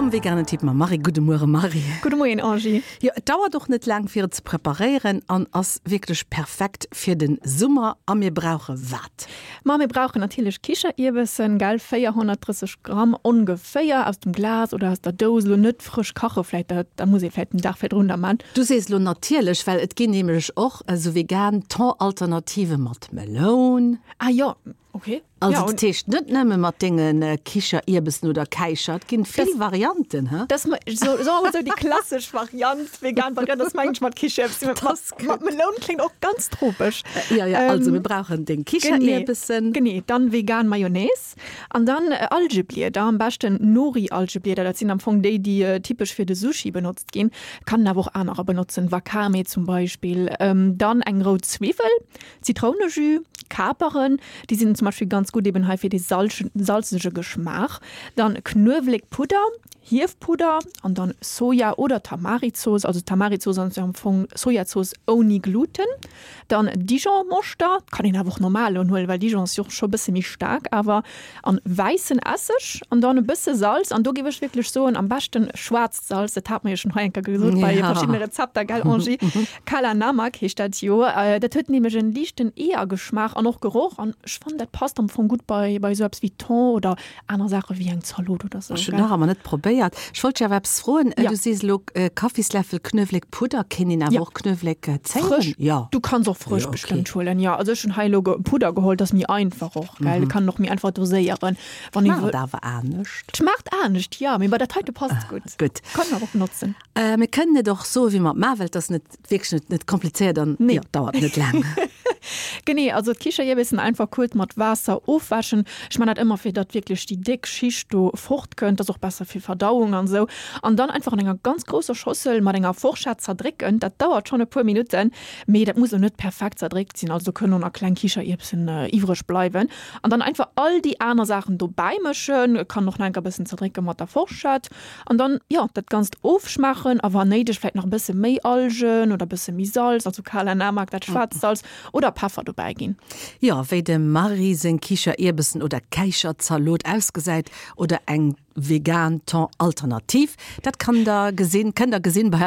Am veganen Tipp mam Marie. Gudde Muere Marie. Gudde Moien Angie. Jo, et dauert och net laang fir et ze preparéieren an ass wierklech perfekt fir den Summer. A mir brauche wat? Ma mir brauchen natierlech Kicherierbessen, gell, 430 Gramm ongeféier, aus dem Glas oder aus der Dous, elo net frësch kache vläit, dat da muss ee vläit den Dag virdrun da man. Du sees elo natierlech, well et ginn nämlech och esou vegan Thon-Alternative mat Meloun. Ah jo, ok. Also dat heescht net nëmme mat denge Kicherierbessen oder Käicher, et ginn vill Varianten, he? Dat ass soe mer mol esou déi klassesch Variant, vegan Variant ass mengen ech mat Kicherierbessen, mat Meloun kléngt och ganz tropesch. Jo, jo, also mir brauchen deng Kicherierbessen. Genee, dann vegan Mayonnaise an dann Algeblieder, am beschten Nori-Algeblieder, dat sinn am Fong déi, déi typesch fir de Sushi benotzt ginn, kann een awer och anerer benotzen, Wakame zum Beispill. Dann eng rout Zwiwwel, Zitrounejus, Kaperen, déi sinn zum Beispill ganz gutt eben hei fir dee salzege Geschmaach. Dann Knuewelekpudder, Hiefpudder an dann Soja oder Tamarizooss. Also Tamarizooss ass jo am Fong Sojazooss ouni Gluten. Dann Dijon-Moschter, kann een awer och normal huelen, well Dijon ass jo och scho bësse méi staark awer. An wäissen Esseg an dann e bësse Salz. An do géif ech wierklech soen, am beschten schwaarzt Salz, dat hat mer jo schonn hei eng Kéier gesot bei verschiddene Rezepter, gell Angie? Kala Namak heescht dat jo. Dat huet nämlech en liichten Eeërgeschmaach an och Geroch an ech fannen dat passt am Fong gutt bei bei esou eppes wéi Thon oder aner Saache wéi eng Zalot oder sou. Ech hunn nach ëmmer net probéiert. Ech wollt dech awer eppes froen. Du sees elo Kaffisläffel Knuewléckpudder, kéint een awer och Knuewléck zéien? Frësch? Jo. Du kanns och frësch bestëmmt huelen, jo. Also ech hunn hei elo Pudder geholl, dat ass méi einfach och, gell. Kann een och méi einfach doséieren. Wann ee wëll. Schmaacht awer anescht. Schmaacht anescht, jo, mee bei dat heite passt gutt. Gutt. Kann een awer och benotzen. Mir kënnen et och soen, wéi mer et maachen, well et ass net wierklech net, net komplizéiert an Nee. jo, dauert net laang. Genee, also d'Kichererbesen einfach kuerz mat Waasser ofwäschen. Ech man dat ëmmer fir datt wierklech déi déck Schicht do fort kënnt, ass och besser fir Verdauung an esou. An dann einfach an enger ganz grousser Schossel mat enger Forschett zerdrécken. Dat dauert schonn e puer Minutten, mee dat muss elo net perfekt zerdréckt sinn, also do kënnen och nach kleng Kichererbsen iwwreg bleiwen. An dann einfach all déi aner Saachen dobäi mëschen, kann och nach enker bëssen zerdrécke mat der Forschett. An dann, jo, dat Ganzt ofschmaachen a wann néideg vläit nach e bësse méi Algen oder e bësse méi Salz, also Kala Namak, dat schwaarzt Salz, oder Peffer dobäi ginn. Jo, wéi dem Marie seng Kichererbesen oder Käicherzalot ausgesäit oder eng vegan Thon Alternativ, dat kann der gesinn, kënnt der gesinn bei.